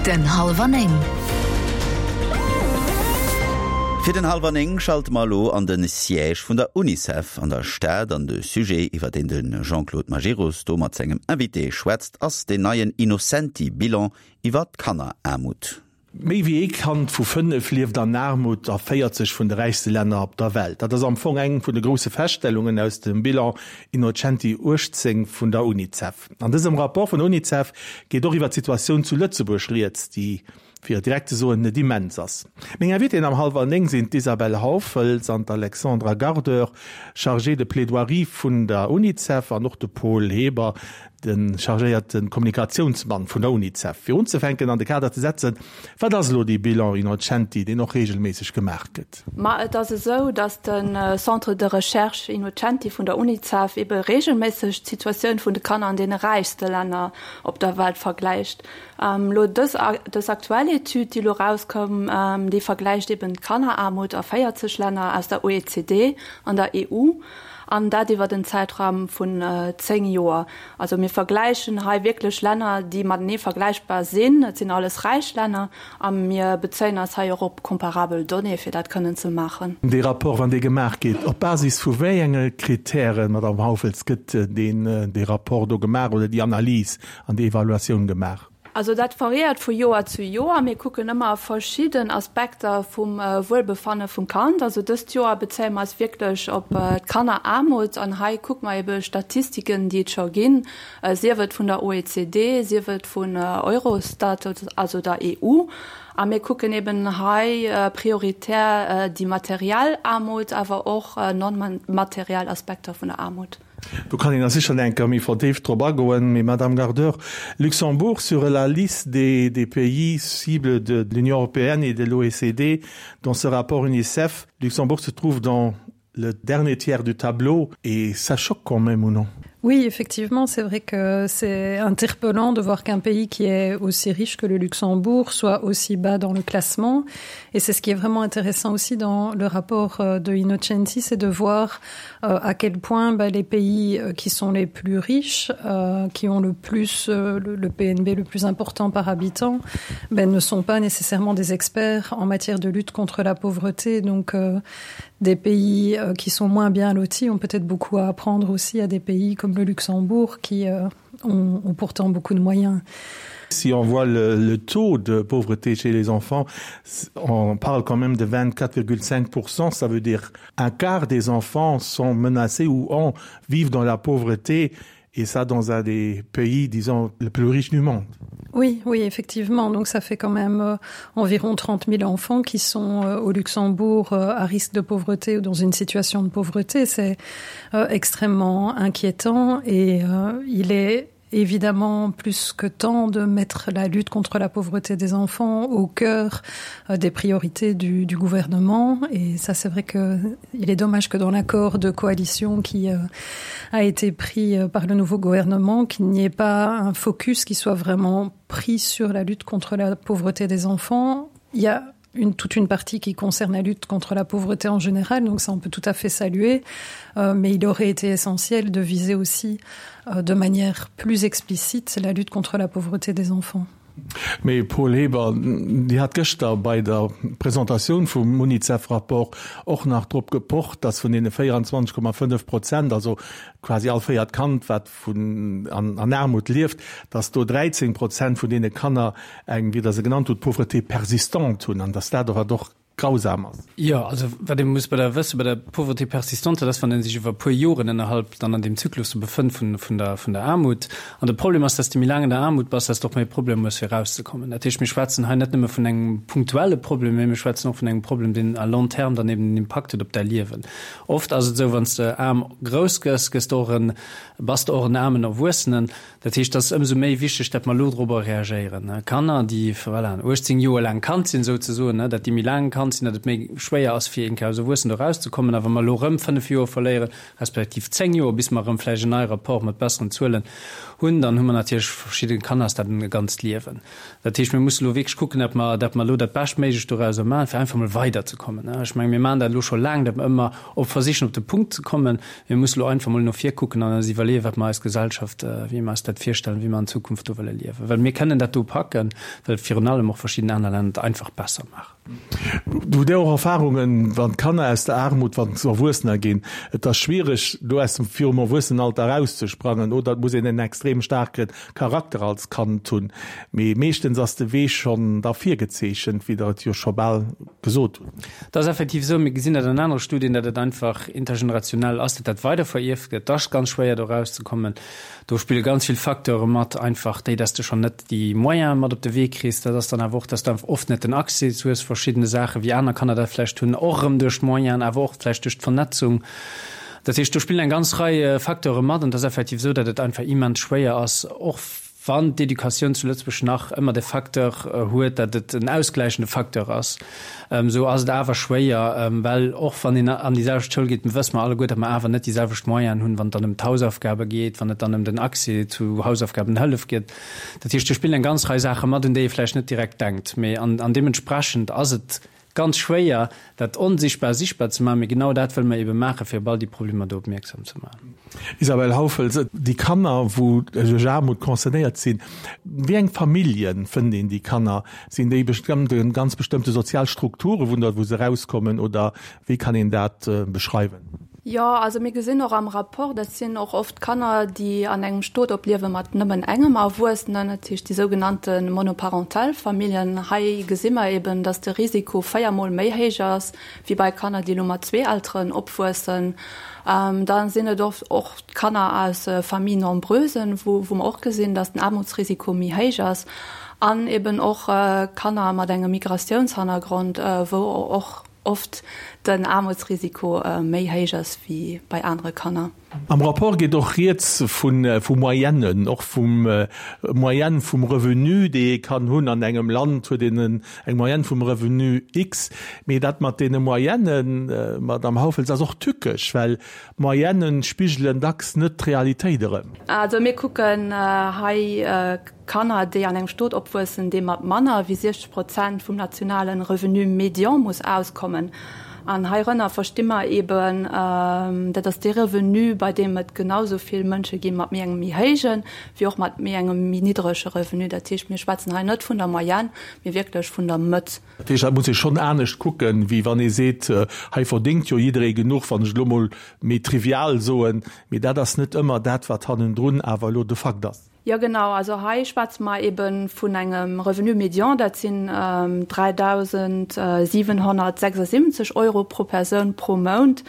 Den Hallwer 9. Fir den Hallwer 9 schalte mer elo an de Siège vun der Unicef an der Stad an de Sujet, iwwer deen de Jean-Claude Majerus do mat sengem Invité schwätzt, ass deen neien Innocenti-Bilan iwwer d'Kanneraarmut. Méi wéi ee Kand vu 5 lieft an Aarmut a 40 vun de räichste Länner op der Welt. Dat ass am Fong eng vun de grousse Feststellungen aus dem Bilan Innocenti 18 vun der Unicef. An dësem Rapport vun der Unicef geet och iwwer d'Situatioun zu Lëtzebuerg rieds, déi, fir et direkt ze soen, net immens ass. Meng Invitéen am Hallwer 9 sinn d'Isabelle Hauffels an d'Alexandra Gardeur, Chargée de plaidoirie vun der Unicef, an och de Paul Heber, De chargéierte Kommunikatiounsmann vun der Unicef. Fir unzefänken an de Kader ze setzen, Wat ass elo dee Bilan Innocenti, deen och reegelméisseg gemaach gëtt? Ma et ass esou, datt de Centre de recherche Innocenti vun der Unicef ebe reegelméisseg d'Situatioun vun de Kanner an deene räichste Länner op der Welt vergläicht. Elo dës dës aktuell Etüd, déi elo erauskoum, déi vergläicht eben d'Kanneraarmut a 40 Länner aus der OECD an der EU. An dat iwwert en Zäitraum vun 10 Joer. Also mir vergläichen hei wierklech Länner, déi matenee vergläichbar sinn. Et sinn alles räich Länner a mir bezéien eis hei och op comparabel Donnéeë fir dat kënnen ze maachen. Dee Rapport, wann dee gemaach gétt, op Basis vu wéi enge Kritären, Madamm Hauffels, gëtt deen, dee Rapport do gemaach oder déi Analys an déi Evaluatioun gemaach? Also dat variéiert vu Joer zu Joer. Mir kucken ëmmer verschidden Aspekter vum Wuelbefanne vum Kand. Also dëst Joer bezéie mer eis wierklech op d'Kanneraarmut an hei kucke mer ebe Statistiken, déi et scho ginn, sief et vun der OECD, sief et vun Eurostat, also der EU. A mir kucken eben hei prioritär déi materiell Aarmut, awer och non-materiell Aspekter vun der Aarmut. Do kann een da sicher eng Kéier méi verdeeft drop agoen. Mee, Madame Gardeur, Luxembourg sur la liste des, des pays cibles de l'Union européenne et de l'OECD dans ce rapport UNICEF, Luxembourg se trouve dans le dernier tiers du tableau et ça choque quand même ou non? Oui, effectivement, c'est vrai que c'est interpellant de voir qu'un pays qui est aussi riche que le Luxembourg soit aussi bas dans le classement. Et c'est ce qui est vraiment intéressant aussi dans le rapport euh, de Innocenti, c'est de voir euh, à quel point bah, les pays euh, qui sont les plus riches, euh, qui ont le plus euh, le, le PNB le plus important par habitant, ben, ne sont pas nécessairement des experts en matière de lutte contre la pauvreté. Donc euh, des pays euh, qui sont moins bien lotis ont peut-être beaucoup à apprendre aussi à des pays comme le Luxembourg qui euh, ont, ont pourtant beaucoup de moyens. Si on voit le, le taux de pauvreté chez les enfants, on parle quand même de 24,5%, ça veut dire un quart des enfants sont menacés ou ont, vivent dans la pauvreté et ça dans un des pays disons le plus riche du monde. Oui, oui, effectivement. Donc ça fait quand même euh, environ 30 000 enfants qui sont euh, au Luxembourg euh, à risque de pauvreté ou dans une situation de pauvreté. C'est euh, extrêmement inquiétant et euh, il est évidemment plus que temps de mettre la lutte contre la pauvreté des enfants au cœur euh, des priorités du, du gouvernement et ça c'est vrai que il est dommage que dans l'accord de coalition qui euh, a été pris euh, par le nouveau gouvernement qu'il n'y ait pas un focus qui soit vraiment pris sur la lutte contre la pauvreté des enfants il y a une toute une partie qui concerne la lutte contre la pauvreté en général donc ça on peut tout à fait saluer euh, mais il aurait été essentiel de viser aussi euh, de manière plus explicite la lutte contre la pauvreté des enfants. Mee Paul Heber, Dir hat gëschter bei der Presentatioun vum Unicef-Rapport och nach drop gepocht, datt vun deene 24,5 Prozent, also quasi all véiert Kand, wat vun an Aarmut lieft, datt do 13 Prozent vun deene Kanner eng, wéi Der se genannt hutt, Pauvreté persistante hunn an datt dat och wat och grausam ass. Jo, also wat ee muss bei der wësse bei der Pauvreté persistante, dat ass, wann ee sech iwwer e puer Joren ënnerhalb dann an deem Zyklus do befënnt vun, vun der, vun der Aarmut. An de Problem ass, dass de méi laang an der Aarmut bass, dass de och méi Problemer hues fir erauszekommen. Dat heescht, mir schwätzen hei net nëmme vun engem punktuelle Problem, mä mir schwätzen och vun engem Problem, deen à long terme dann eben en Impakt huet op däi Liewen. Oft ass et esou, wann s de aarm grouss gëss, gëss de och en, bass de och en aarmen Erwuessenen. Dat heescht, et ass ëmsou méi wichteg, datt mer elo dorobber reagéieren. Kanner, déi, voilà, 18 Joer laang Kand sinn, souzesoen, datt déi méi laang Kand sinn, datt et méi schwéier ass, fir eng Kéier als Erwuessen do erauszekommen. A wa mer elo erëm 5 Joer verléieren, respektiv 10 Joer, bis mer erëm vläicht en neie Rapport mat besseren Zuelen. hunn, dann hu mer natierlech verschidde Kanner ass dat e ganzt Liewen. Dat heescht, mir musse elo wierklech kucken, datt mer, datt mer elo dat Beschtméiglecht dorauser maachen, fir einfach emol weiderzekommen. Ech menge mir maachen dat elo scho laang, datt mer ëmmer op versichen op de Punkt ze kommen. Mir musse elo einfach emol no vir kucken an eis iwwerleeën, wat mer eis Gesellschaft, wéi mer eis dat virstellen, wéi mer an Zukunft do wëlle liewen. Well mir kënnen dat do packen, well virun allem och verschidden aner Länner et einfach besser maachen. Hutt Dir och Erfahrungen, wann d'Kanner aus der Aarmut, wann se Erwuessener ginn, et ass schwiereg do aus dem virum Erwuessenenalter erauszesprangen oder et muss een en extrem staarke Charakter als Kand hunn. Mee meeschtens ass de Wee schonn da virgezeechent, wéi Der et jo scho bal gesot hutt. Et ass effektiv esou, mir gesinn dat an anere Studien, datt et einfach intergenerationell ass, datt dat weider verierft gëtt. Et ass ganz schwéier do erauszekommen. Do spille ganz vill Facteure mat, einfach déi, datt s de schonn net déi Moyene mat op de Wee kriss. Dat ass dann awer och, datt s de einfach oft net den Accès hues verschiddene Saachen, wéi aner Kanner dat vläicht hunn, och erëm duerch d'Moyenen, awer och vläicht duerch d'Vernetzung. Dat heescht, do spillen eng ganz Rei Facteure mat an et ass effektiv esou, datt et einfach immens schwéier ass, och wann d'Educatioun zu Lëtzebuerg nach ëmmer de Facteur huet, datt et en ausgläichende Facteur ass, esou ass et awer schwéier, well och wann een an déi selwecht Schoul geet, wësse mer alleguer, datt mer awer net déi selwecht Moyenen hunn, wann et dann ëm d'Hausaufgabe geet, wann et dann ëm den Accès zu Hausaufgabenhëllef geet. Dat heescht, do spillen eng ganz Rei Saache mat, un déi ee vläicht net direkt denkt, mee an deementsprechend ass et Ganz schwéier, dat Onsichtbar sichtbar ze maachen, mee genau dat wëlle mer ebe maachen, fir op all déi Problemer do opmierksam ze maachen. Isabelle Hauffels, Déi Kanner, wou duerch Aarmut concernéiert sinn, wéi eng Famillje fënnt een déi Kanner? Sinn déi bestëmmte, ganz bestëmmte sozial Strukture wou wou se erauskommen oder wéi kann een dat beschreiwen? Jo, also mir gesinn och am Rapport, dat sinn och oft Kanner, déi an engem Stot opliewe mat nëmmen engem Erwuessenen, dat heescht déi sougenannte monoparental Familljen. Hei gesi mer eben, datt de Risiko véiermol méi héich ass wéi bei Kanner, déi elo mat zwee Elteren opwuessen. Da sinn et oft och Kanner aus Familles nombreusen, wou mer och gesinn, datt den Aarmutsrisiko méi héich ass. An eben och Kanner mat engem Migratiounshannergrond, wou och oft den Aarmutsrisiko méi héich ass wéi bei anere Kanner. Am Rapport geet och rieds vu Moyennen, och vum Moyenne vum Revenu, déi ee kann hunn. An engem Land huet een eng Moyenne vum Revenu X. Mee dat mat deene Moyennen, Madamm Hauffels, ass och tückesch, well Moyennen spigelen dacks net d'Realitéit erëm. Also mir kucken hei Kanner, déi an engem Stot opwuessen, dee mat manner wéi 60 Prozent vum nationale Revenu médian muss auskommen. An heirënner versti mer eeben, dat ass dee Revenu, bei deem et genau esou vill Mënsche gi mat méi engem méi héijen, wéi och mat méi engem méi niddrege Revenu. Dat heescht, mir schwätzen hei net vun der Moyenne, mee wierklech vun der Mëtt. Dat heescht, dat muss ee schonn anescht kucken, wéi wann ee seet, hei verdéngt jo jidderee genuch, wann ech et elo mol méi trivial soen. Mee dat ass net ëmmer dat, wat hannendrun awer elo de Fakt ass. Jo genau, also hei schwätze mer ebe vun engem Revenu médian, dat sinn 3.776 Euro pro Persoun pro Mount.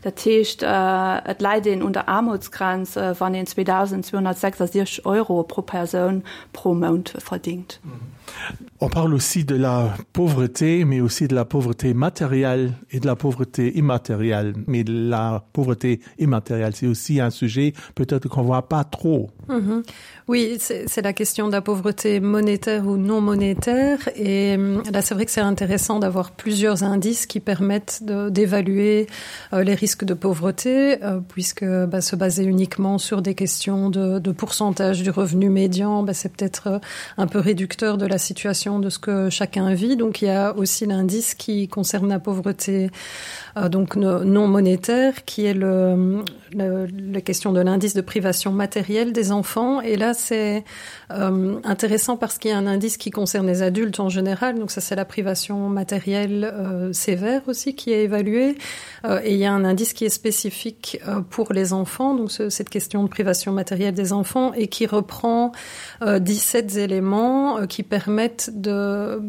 Dat heescht, et läit een un der Aarmutsgrenz, wann een 2.266 Euro pro Persoun pro Mount verdingt. On parle aussi de la pauvreté, mais aussi de la pauvreté matérielle et de la pauvreté immatérielle. Mais la pauvreté immatérielle, c'est aussi un sujet peut-être qu'on voit pas trop. Mm -hmm. Oui, c'est la question de la pauvreté monétaire ou non monétaire et là c'est vrai que c'est intéressant d'avoir plusieurs indices qui permettent d'évaluer euh, les risques de pauvreté euh, puisque bah, se baser uniquement sur des questions de, de pourcentage du revenu médian bah, c'est peut-être euh, un peu réducteur de la situation de ce que chacun vit donc il y a aussi l'indice qui concerne la pauvreté euh, donc non monétaire qui est le, le, la question de l'indice de privation matérielle des enfants et là c'est euh, intéressant parce qu'il y a un indice qui concerne les adultes en général donc ça c'est la privation matérielle euh, sévère aussi qui est évaluée euh, et il y a un indice qui est spécifique euh, pour les enfants donc ce, cette question de privation matérielle des enfants et qui reprend euh, 17 éléments euh, qui permettent de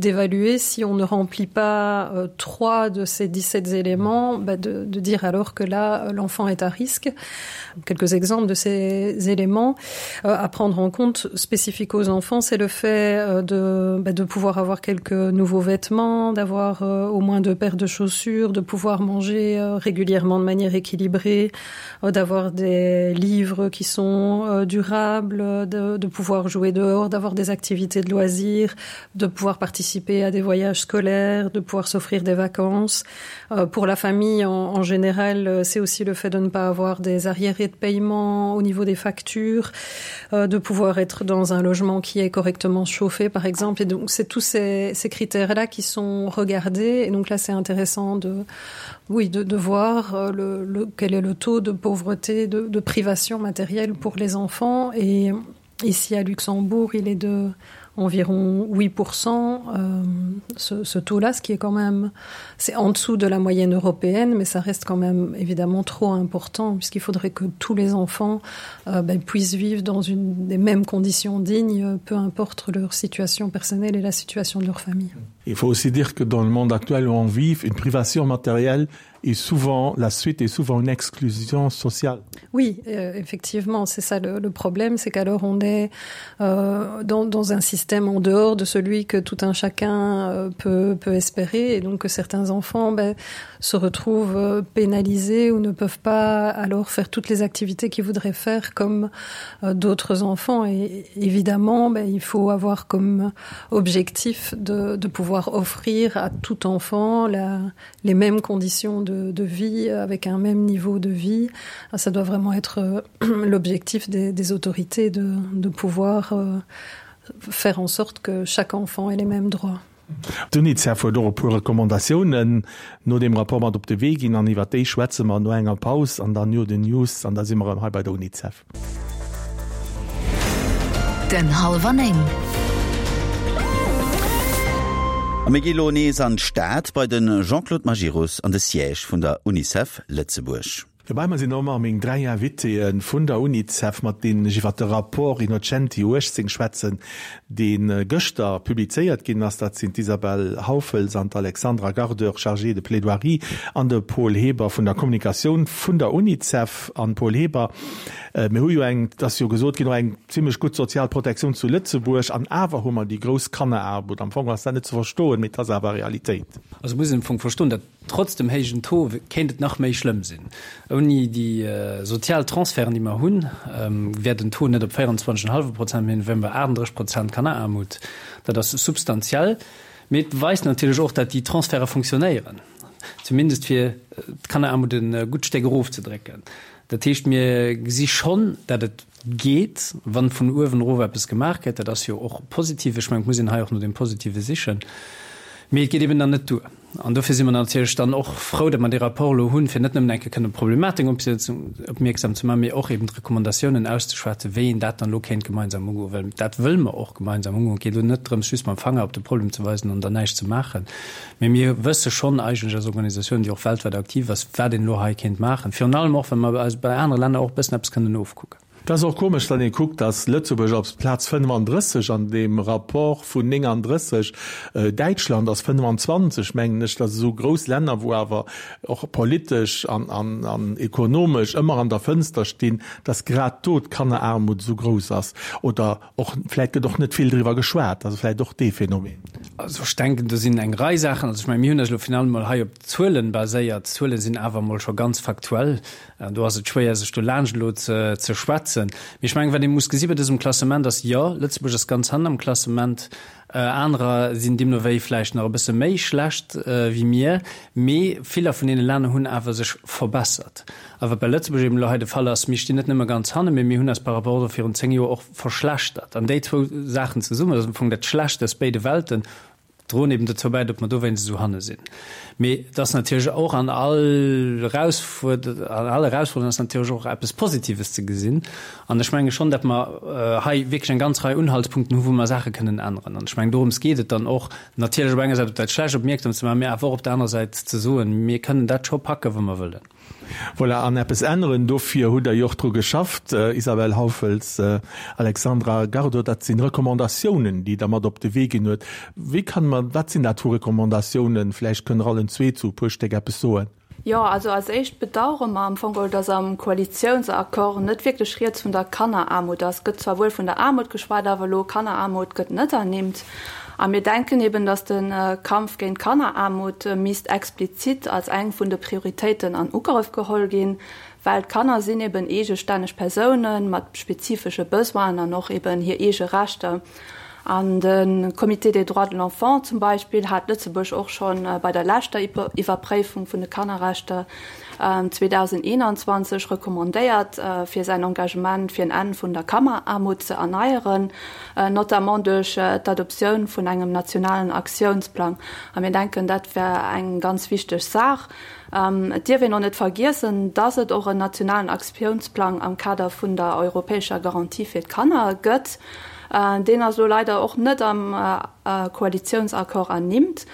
d'évaluer si on ne remplit pas euh, trois de ces 17 éléments bah, de, de dire alors que là l'enfant est à risque quelques exemples de ces éléments euh, à prendre en compte spécifique aux enfants c'est le fait euh, de, bah, de pouvoir avoir quelques nouveaux vêtements d'avoir euh, au moins deux paires de chaussures de pouvoir manger euh, régulièrement de manière équilibrée euh, d'avoir des livres qui sont euh, durables de, de pouvoir. pouvoir jouer dehors, d'avoir des activités de loisirs, de pouvoir participer à des voyages scolaires, de pouvoir s'offrir des vacances. Euh, pour la famille en, en général, euh, c'est aussi le fait de ne pas avoir des arriérés de paiement au niveau des factures, euh, de pouvoir être dans un logement qui est correctement chauffé par exemple. Et donc c'est tous ces, ces critères-là qui sont regardés. Et donc là c'est intéressant de, oui, de, de voir euh, le, le, quel est le taux de pauvreté, de, de privation matérielle pour les enfants. Et ici à Luxembourg, il est de environ 8% euh, ce, ce taux là ce qui est quand même c'est en dessous de la moyenne européenne mais ça reste quand même évidemment trop important puisqu'il faudrait que tous les enfants euh, ben, puissent vivre dans une des mêmes conditions dignes peu importe leur situation personnelle et la situation de leur famille il faut aussi dire que dans le monde actuel où on vit une privation matérielle est souvent la suite est souvent une exclusion sociale. Oui, euh, effectivement, c'est ça le, le problème, c'est qu'alors on est euh, dans, dans un système en dehors de celui que tout un chacun euh, peut, peut espérer et donc que certains enfants ben, se retrouvent euh, pénalisés ou ne peuvent pas alors faire toutes les activités qu'ils voudraient faire comme euh, d'autres enfants et évidemment ben, il faut avoir comme objectif de, de pouvoir offrir à tout enfant la, les mêmes conditions de, de vie avec un même niveau de vie ah, ça doit vraiment être euh, l'objectif des, des autorités de, de pouvoir euh, faire en sorte que chaque enfant ait les mêmes droits. D'UNICEF huet och e puer Recommandatiounen no deem Rapport mat op de Wee ginn an iwwer déi schwätze mer no enger Paus an dann no den News an da si mer erëm hei bei der UNICEF. Den Hallwer 9. A mir gi lo nees an d'Stad bei de Jean-Claude Majerus an de Siège vun der UNICEF Lëtzebuerg. Dobäi mer sinn och ëmmer meng 3 Invitéen vun der UNICEF, mat deenen ech iwwer de Rapport Innocenti 18 schwätzen, dee gëschter publizéiert ginn ass. Dat sinn d'Isabelle Hauffels an d'Alexandra Gardeur, Chargée de plaidoirie, an de Paul Heber vun der Kommunikatioun vun der UNICEF. An Paul Heber, mir hu jo eng, et ass jo gesot ginn, och eng zimlech gutt sozial Protektioun zu Lëtzebuerg, an awer hu mer déi grouss Kanneraarmut. Am Fong ass dat net ze verstoen, mee et ass awer Realitéit. Also muss een am Fong verstoen, datt Trotz dem héijen Taux kéint et nach méi schlëmm sinn. Ouni déi sozial Transferten, déi mer hunn, wär den Taux net op 24,5 Prozent, mee wären bei 38 Prozent Kanneraarmut. Dat ass substantiell. Mee et weist natierlech och, datt déi Transferte funktionéieren, zumindest fir d'Kanneraarmut e gutt Stéck erofzedrécken. Dat heescht, mir gesi schonn, datt et geet, wann vun uewen erof eppes gemaach gëtt. Dat ass jo och positiv. Ech mengen, et muss een hei och no dem Positive sichen. Mee et geet eben dann net duer. An dofir si mer natierlech dann och frou, datt mer dee Rapport elo hunn, fir net nëmmen eng Kéier kënnen op d'Problematik opmierksam ze maachen, mee och eben d'Recommandatiounen auszeschwätzen, wéi een dat dann elo kéint gemeinsam ugoen. Well dat wëlle mer och gemeinsam ugoen. Et geet elo net drëms, just mam Fanger op de Problem ze weisen an dann näischt ze maachen. Mee mir wësse schonn eigentlech als Organisatioun, déi och weltwäit aktiv ass, wat een elo hei kéint maachen. Virun allem och, well mer eis bei anere Länner och e bëssen eppes kënnen ofkucken. Et ass och komesch, wann ee kuckt, datt Lëtzebuerg op Plaz 35 an deem Rapport vun 39, Däitschland ass 25, mengen ech, dat esou grouss Länner, wou awer och politesch an ekonomesch ëmmer an der Fënster stinn, datt grad do d'Kanneraarmut esou grouss ass. Oder och vläicht gëtt och net vill driwwer geschwat, also vläicht och dee Phänomen. Also ech denken, do sinn eng Rei Saachen. Also ech mengen, mir hunn eis elo finalement mol hei op d'Zuelen baséiert. D'Zuele sinn awer emol scho ganz faktuell. Do ass et schwéier, sech do laanscht elo ze schwätzen. Mee ech mengen, wat ee muss gesi bei dësem Klassement ass, jo, Lëtzebuerg ass ganz hannen am Klassement, anerer sinn deemno wéi vläicht nach e bësse méi schlecht wéi mir, mee viller vun deene Länner hunn awer sech verbessert. A wat bei Lëtzebuerg eben elo hei de Fall ass, mir stinn net nëmme ganz hannen, mee mir hunn eis par rapport och virun 10 Joer och verschlechtert. An déi zwou Saachen zesummen, dat ass am Fong dat Schlecht aus béide Welten, droen eben dozou bäi, datt mer dowéinst esou hanne sinn. Mee et ass natierlech och an all Erausfuerderung, an all Erausfuerderung ass natierlech och eppes Positives ze gesinn. An ech menge schonn, datt mer hei wierklech eng ganz Rei Unhaltspunkten hu wou mer Saache kënnen änneren. An ech mengen, dorëms geet et dann och, natierlech op enger Säit op dat Schlecht opmierksam ze maachen, mee awer och op der anerer Säit ze soen, mir kënnen dat scho packen, wa mer wëllen. Voilà, an eppes änneren, dofir hutt Der jo och dru geschafft, Isabelle Hauffels, Alexandra Gardeau, dat sinn Recommandatiounen, déi Der mat op de Wee ginn huet. Wéi kann mer, wat sinn dat vu Recommandatiounen? Vläicht kënnt Der allen zwee zu e puer Stéck eppes soen. Jo, also als éischt bedauere mer am Fong geholl, dass am Koalitiounsaccord net wierklech rieds vun der Kanneraarmut ass. Et gëtt zwar wuel vun der Aarmut geschwat, awer elo Kanneraarmut gëtt net ernimmt. A mir denken eben, dass de Kampf géint d'Kanneraarmut misst explizit als eng vun de Prioritéiten an Ugrëff geholl ginn. Well d'Kanner sinn eben eegestänneg Persounen mat spezifesche Besoinen an och eben hir eege Rechter. An de Comité des droits de l'enfant zum Beispill hat Lëtzebuerg och scho bei der leschter Iwwerpréifung vun de Kannerrechter 2021 recommandéiert, fir säin Engagement fir en Enn vun der Kanneraarmut ze erneieren, notamment duerch d'Adoptioun vun engem nationalen Aktiounsplang. A mir denken, dat wär eng ganz wichteg Saach. Et dierf een och net vergiessen, dass et och en nationalen Aktiounsplang am Kader vun der europäescher Garantie fir d'Kanner gëtt. Deen ass elo leider och net am Koalitiounsaccord ernimmt.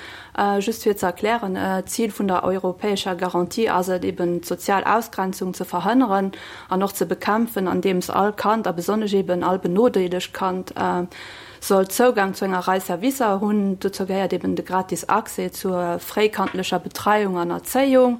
Just fir ze erklären, D'Zil vun der europäescher Garantie ass et eben, d'sozial Ausgrenzung ze verhënneren an och ze bekämpfen, andeems all Kand, a besonnesch eben all benodeelegt Kand, soll Zougang zu enger Rei Servicer hunn. Dozou gehéiert eben de gratis Accès zur fréikandlecher Betreiung an Erzéiung,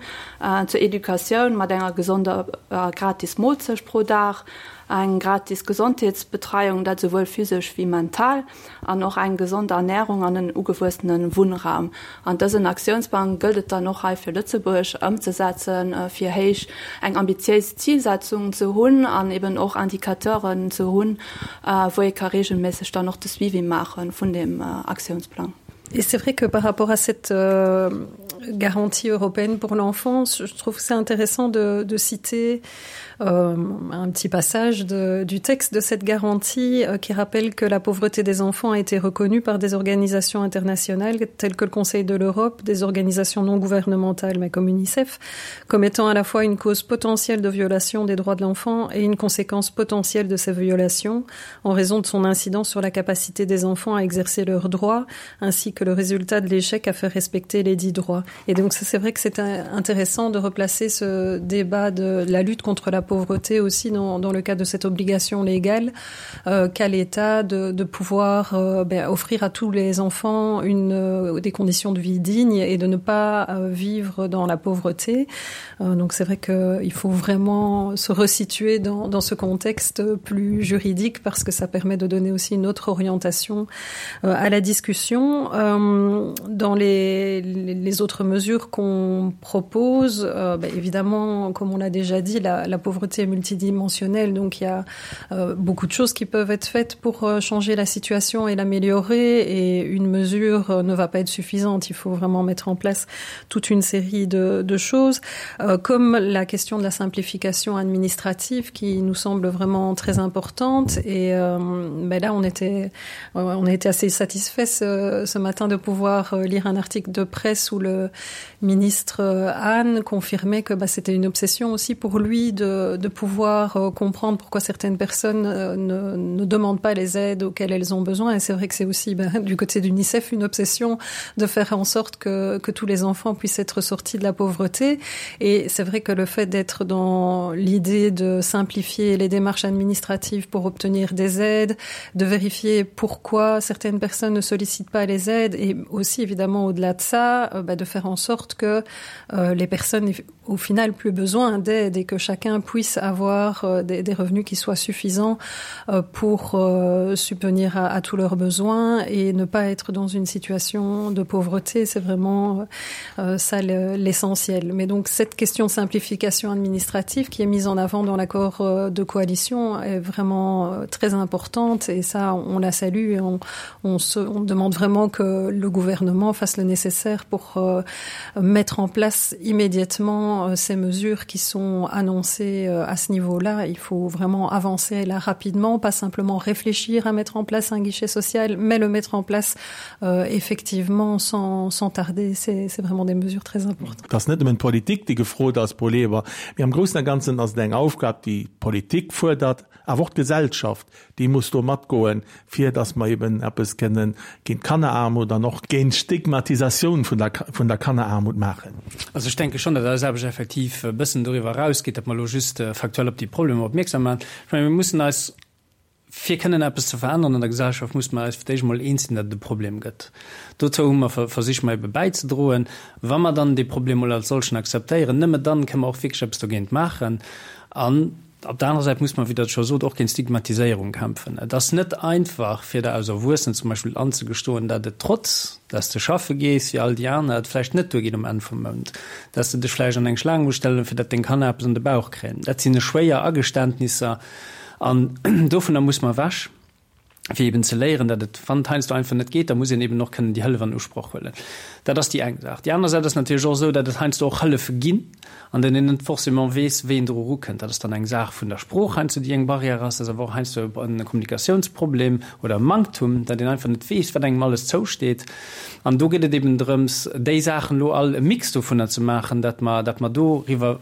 zur Educatioun mat enger gesonder a gratis Moolzecht pro Dag, eng gratis Gesondheetsbetreiung, dat esouwuel physesch wéi mental, an och eng gesond Ernärung an en ugewuessene Wunnraum. An dësen Aktiounsplang gëllt et dann och hei fir Lëtzebuerg ëmzesetzen, fir héich eng ambitiéis Zilsetzung ze hunn an eben och Indicateuren ze hunn, wou ee ka regelméisseg dann och de Suivi maache vun deem Aktiounsplang. Et c'est vrai que par rapport à cette euh, garantie européenne pour l'enfance, je trouve c'est intéressant de, de citer euh, un petit passage de, du texte de cette garantie euh, qui rappelle que la pauvreté des enfants a été reconnue par des organisations internationales telles que le Conseil de l'Europe, des organisations non gouvernementales mais comme UNICEF, comme étant à la fois une cause potentielle de violation des droits de l'enfant et une conséquence potentielle de ces violations en raison de son incidence sur la capacité des enfants à exercer leurs droits ainsi que le résultat de l'échec à faire respecter les dits droits. Et donc c'est vrai que c'est intéressant de replacer ce débat de la lutte contre la pauvreté aussi dans, dans le cadre de cette obligation légale euh, qu'à l'État de, de pouvoir euh, ben, offrir à tous les enfants une, euh, des conditions de vie dignes et de ne pas euh, vivre dans la pauvreté. Euh, donc c'est vrai qu'il faut vraiment se resituer dans, dans ce contexte plus juridique parce que ça permet de donner aussi une autre orientation euh, à la discussion. Euh, dans les, les autres mesures qu'on propose, euh, ben, évidemment, comme on l'a déjà dit, la, la pauvreté est multidimensionnelle, donc il y a euh, beaucoup de choses qui peuvent être faites pour euh, changer la situation et l'améliorer et une mesure euh, ne va pas être suffisante. Il faut vraiment mettre en place toute une série de, de choses, euh, comme la question de la simplification administrative qui nous semble vraiment très importante. Et euh, ben là, on était, euh, on a été assez satisfait ce, ce matin de pouvoir euh, lire un article de presse où le ministre euh, Anne confirmait que c'était une obsession aussi pour lui de, de pouvoir euh, comprendre pourquoi certaines personnes ne, ne demandent pas les aides auxquelles elles ont besoin. Et c'est vrai que c'est aussi ben, du côté d'UNICEF une obsession de faire en sorte que, que tous les enfants puissent être sortis de la pauvreté. Et c'est vrai que le fait d'être dans l'idée de simplifier les démarches administratives pour obtenir des aides, de vérifier pourquoi certaines personnes ne sollicitent pas les aides et aussi évidemment au-delà de ça, euh, bah, de faire en sorte que euh, les personnes aient au final plus besoin d'aide et que chacun puisse avoir euh, des, des revenus qui soient suffisants euh, pour euh, subvenir à, à tous leurs besoins et ne pas être dans une situation de pauvreté, c'est vraiment euh, ça l'essentiel. Mais donc cette question de simplification administrative qui est mise en avant dans l'accord euh, de coalition est vraiment euh, très importante et ça on la salue et on, on, se, on demande vraiment que le gouvernement fasse le nécessaire pour euh, mettre en place immédiatement euh, ces mesures qui sont annoncées euh, à ce niveau-là. Il faut vraiment avancer là rapidement, pas simplement réfléchir à mettre en place un guichet social, mais le mettre en place euh, effectivement sans, sans tarder. C'est vraiment des mesures très importantes. Dat ass net nëmmen d'Politik, déi gefrot ass, Paul Eber, mee am Groussen a Ganzen ass et eng Aufgab, déi d'Politik fuerdert, awer och d'Gesellschaft, déi muss do matgoen, fir datt mer eben eppes kënnen géint d'Kanneraarmut an och géint d'Stigmatisatioun vun der, vun der Kanneraarmut maachen. Also ech denke schonn, datt eis Aarbecht effektiv e bëssen doriwwer erausgeet, datt mer elo just faktuell op déi Problemer opmierksam maachen. Ech mengen, mir mussen eis, fir kënnen eppes ze veränneren an der Gesellschaft, musse mer eis fir d'éischt emol eens sinn, datt et e Problem gëtt. Dozou hu mer versicht, mer ebe bäizedroen. Wa mer dann dee Problem emol als solchen akzeptéieren, nëmme dann kënnen mer och wierklech eppes dogéint maachen. An. Op der anerer Säit muss mer, wéi Der et scho sot, och géint Stigmatiséierung kämpfen. Et ass net einfach, fir der als Erwuessenen zum Beispill anzegestoen, dat et trotz dass de schaffe gees wéi all déi aner, et vläicht net duergeet um Enn vum Mount, dass de dech vläicht an eng Schlaang muss stellen, fir dat deng Kanner eppes an de Bauch kréien. Dat sinn schwéier Ageständnisser an dovunner muss mer ewech. fir eben ze léieren, datt et, wann et heiansdo einfach net geet, da muss een eben och kënnen déi Hëllef an Usproch huelen. Dat ass déi eng Saach. Déi aner Säit ass natierlech och esou, datt et heiansdo och Hëllefe ginn, an deenen een net forcément weess, wéi een dru erukënnt. Dat ass dann eng Saach vun der Sprooch heiansdo, déi eng Barrière ass. Dat ass awer och heiansdo e Kommunikatiounsproblem oder e Manktum, datt een einfach net weess, wat engem alles zousteet. An do geet et eben drëms, déi Saachen elo all e Mix dovunner ze maachen, datt mer, datt mer doriwwer,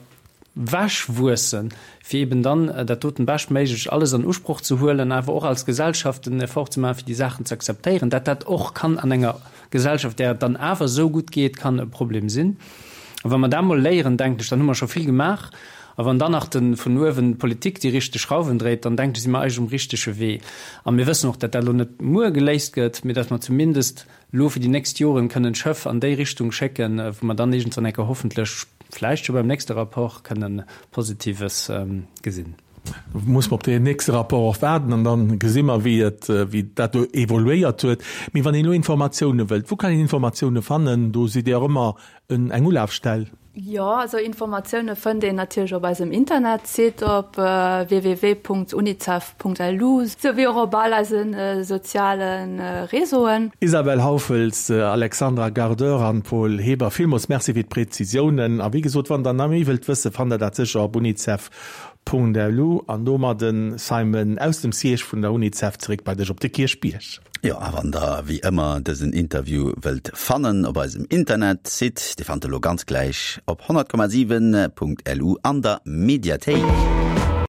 Wech wuessen, fir eben dann dat doten beschtméiglech alles an Usproch ze huelen, awer och als Gesellschaft den Effort ze maachen, fir déi Saachen ze akzeptéieren, dat dat och kann an enger Gesellschaft, där et dann awer esou gutt geet, kann e Problem sinn. A wa mer dat emol léieren, denken ech, dann hu mer scho vill gemaach. A wann dann nach de vun uewen d'Politik déi richteg Schrauwen dréit, dann denken ech, si mer eigentlech um richtege Wee. A mir wëssen och, dat dat elo net muer geléist gëtt, mee dat mer zumindest elo fir déi nächst Joren kënnen d'Schëff an déi Richtung schécken, wou mer dann iergendwann eng Kéier hoffentlech, vläicht scho beim nächste Rapport, kënnen Positives gesinn. Muss mer op deen nächste Rapport och waarden an da gesi mer, wéi et, wéi dat do evoluéiert huet. Mee wann een elo Informatioune wëllt, wou kann een Informatioune fannen? Do sidd Dir och ëmmer eng Ulafstell. Jo, also Informatioune fënnt een natierlech op eisem Internetsite op www.unicef.lu, sou wéi och op all eise soziale Réseauen. Isabelle Hauffels, Alexandra Gardeur an Paul Heber, villmools Merci fir d'Präzisiounen. A wéi gesot, wann der nach méi wëllt wëssen, fannt der dat sécher op unicef.lu. An domadden, Simon, aus dem Siège vun der Unicef zeréck bei dech op de Kierchbierg. Jo, a wann der wéi ëmmer dësen Interview wëllt fannen op eisem Internetsite, dee fannt der elo ganz gläich op 100,7.lu an der Mediathéik.